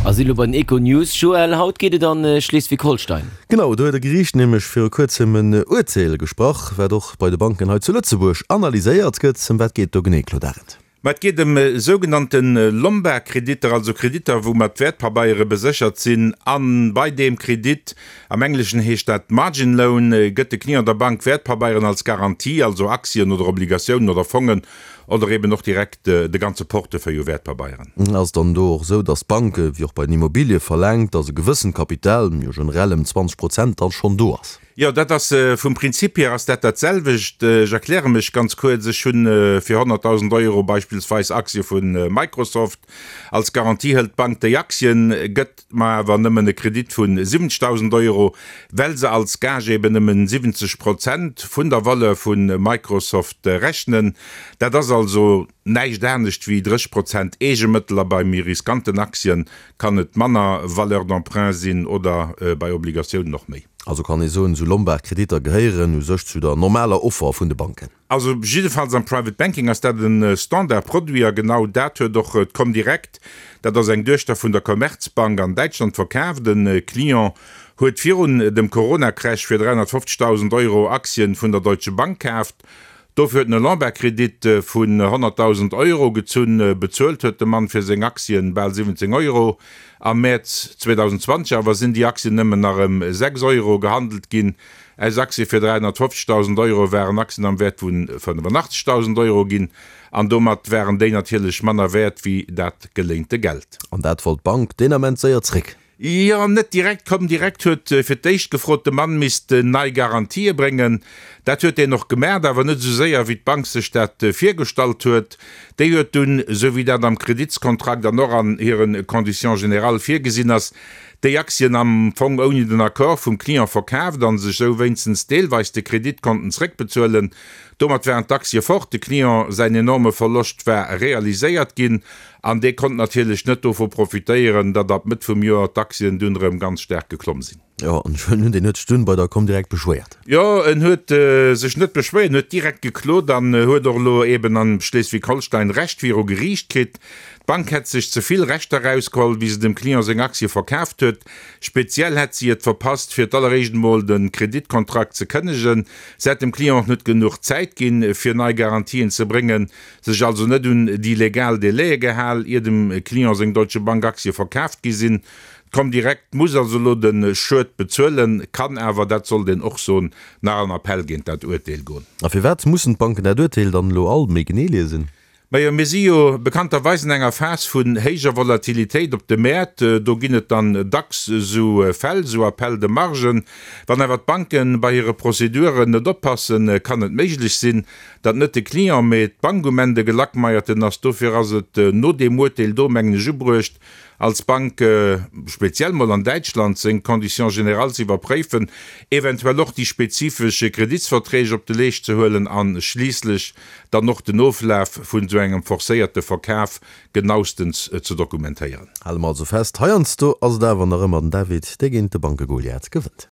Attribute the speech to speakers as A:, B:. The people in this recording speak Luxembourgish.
A: A si lo bei den Econews. Joël, haut geet et an Schleswig-Holstein.
B: Genau, do huet e Geriicht nämlech viru kuerzem en Urteel gesprach, wat och bei de Banken hei zu Lëtzebuerg analyséiert gëtt. Ëm wat geet do genee, Claude Arend?
C: Ma et geet ëm sougenannte Lombardkreditter, also Kreditter, wou mat Wäertpabeiere beséchert sinn. A bei deem Kredit, am Engleschen heescht dat Margin Loan, gëtt de Client der Bank Wäertpabeieren als Garantie, also Aktien oder Obligatiounen oder Fongen oder eben och direkt de ganze Portefeuille u Wäertpabeieren.
B: Ass et dann do och esou, datt d'Bank, wéi och bei den Immobilie verlaangt, datt e gewëssent Kapital, jo generell ëm 20 Prozent, dann schonn do ass?
C: Jo, dat ass, vum Prinzip hier ass dat dat selwecht. Ech erkläre mech ganz kuerz. Ech hunn fir 100.000 Euro beispillsweis Aktie vu Microsoft. Als Garantie hëlt d'Bank déi Aktien, gëtt mer awer nëmmen e Kredit vu 70.000 Euro, well se als Gage eben nëmmen 70 Prozent vun der Valeur vu Microsoft rechnen. Dat ass also näischt anescht wéi 30 Prozent Eegemëttel a bei méi riskanten Aktien kann et manner Valeur d'emprunt sinn oder bei Obligatiounen och méi.
B: Also kann ee soen, esou Lombard-Kreditter gehéieren u sech zu der normaler Offer vun de Banken.
C: Also jiddefalls am Private Banking ass dat e Standardproduit a genau dat huet och d'Comdirect, dat ass eng Duechter vun der Commerzbank an Däitschland, verkaaft. E Client huet virun dem Corona-Crash fir 350.000 Euro Aktien vun der Deutsche Bank kaaft. Dofir huet en e Lombardkredit vun 100.000 Euro gezunn. Bezuelt huet de Mann fir seng Aktien bal 17 Euro. Am Mäerz 2020 awer sinn déi Aktien nëmmen nach ëm 6 Euro gehandelt ginn. Aus Aktie fir 350.000 Euro waren Aktien am Wäert vu 85.000 Euro ginn an domat waren déi natierlech manner wäert wéi dat geléinte Geld.
B: An dat wollt d'Bank deen Ament séier zréck.
C: Jo, net direkt. Comdirect huet fir d'éischt gefrot, de Mann misst nei Garantië bréngen. Dat huet deen och gemaacht, awer net esou séier, wéi d'Bank sech dat virgestallt huet. Déi huet dunn, esou wéi dat am Kreditskontrakt an och an hire Conditions générales virgesinn ass, déi Aktien am Fong ouni den Accord vum Client verkaaft a sech esou wéinstens deelweis de Kredit konnten zréckbezuelen. Domat waren d'Aktie fort, de Client säin enorme Verloscht war realiséiert ginn an dee konnt natierlech net dovu profitéieren, datt ab Mëtt vum Joer d'Aktien dunn erëm ganz staark geklomm sinn.
B: Jo, an ech huelen un, deen huet sech dunn bei der Comdirect beschwéiert.
C: Jo, en huet sech net beschwéiert, en huet direkt geklot an huet och elo eben am Schleswig-Holstein Recht viru Geriicht kritt. D'Bank hätt sech ze vill Rechter erausgeholl, wéi se dem Client seng Aktie verkaaft huet. Speziell hätt si et verpasst, fir d'alleréischt emol de Kreditkontrakt ze kënnegen. Se hätt dem Client och net genuch Zäit ginn, fir nei Garantien ze bréngen, sech also net un déi legal Délaië gehal, ier dem Client seng Deutsche Bank Aktie verkaaft gi sinn. D'Comdirect muss also elo de Schued bezuelen, kann awer, dat sollt een och soen, nach an Appell géint dat Urteel goen.
B: A firwat mussen d'Banken dat Urteel dann elo all méi genee liesen?
C: Majo, mir si jo bekannterweis an enger Phas vun héijer Volatilitéit op de Mäert. Do ginn et dann dacks esou Fäll, esou Appels de marge. Wann awer d'Banke bei hire Prozeduren net oppassen, kann et méiglech sinn, datt net de Client, mee d'Bank um Enn de Gelackmeierten ass. Dofir ass et no deem Urteel do, mengen ech, ubruecht, als Bank, speziell mol an Däitschland, seng Conditions générales ze iwwerpréifen, eventuell och déi spezifesch Kreditsverträg op de Leescht ze huelen a schliisslech dann och den Oflaf vun esou engem forcéierte Verkaf genaustens ze dokumentéieren.
B: Hale mer also fest, heiansdo ass et awer nach ëmmer den David, dee géint de Banke-Goliath gewënnt.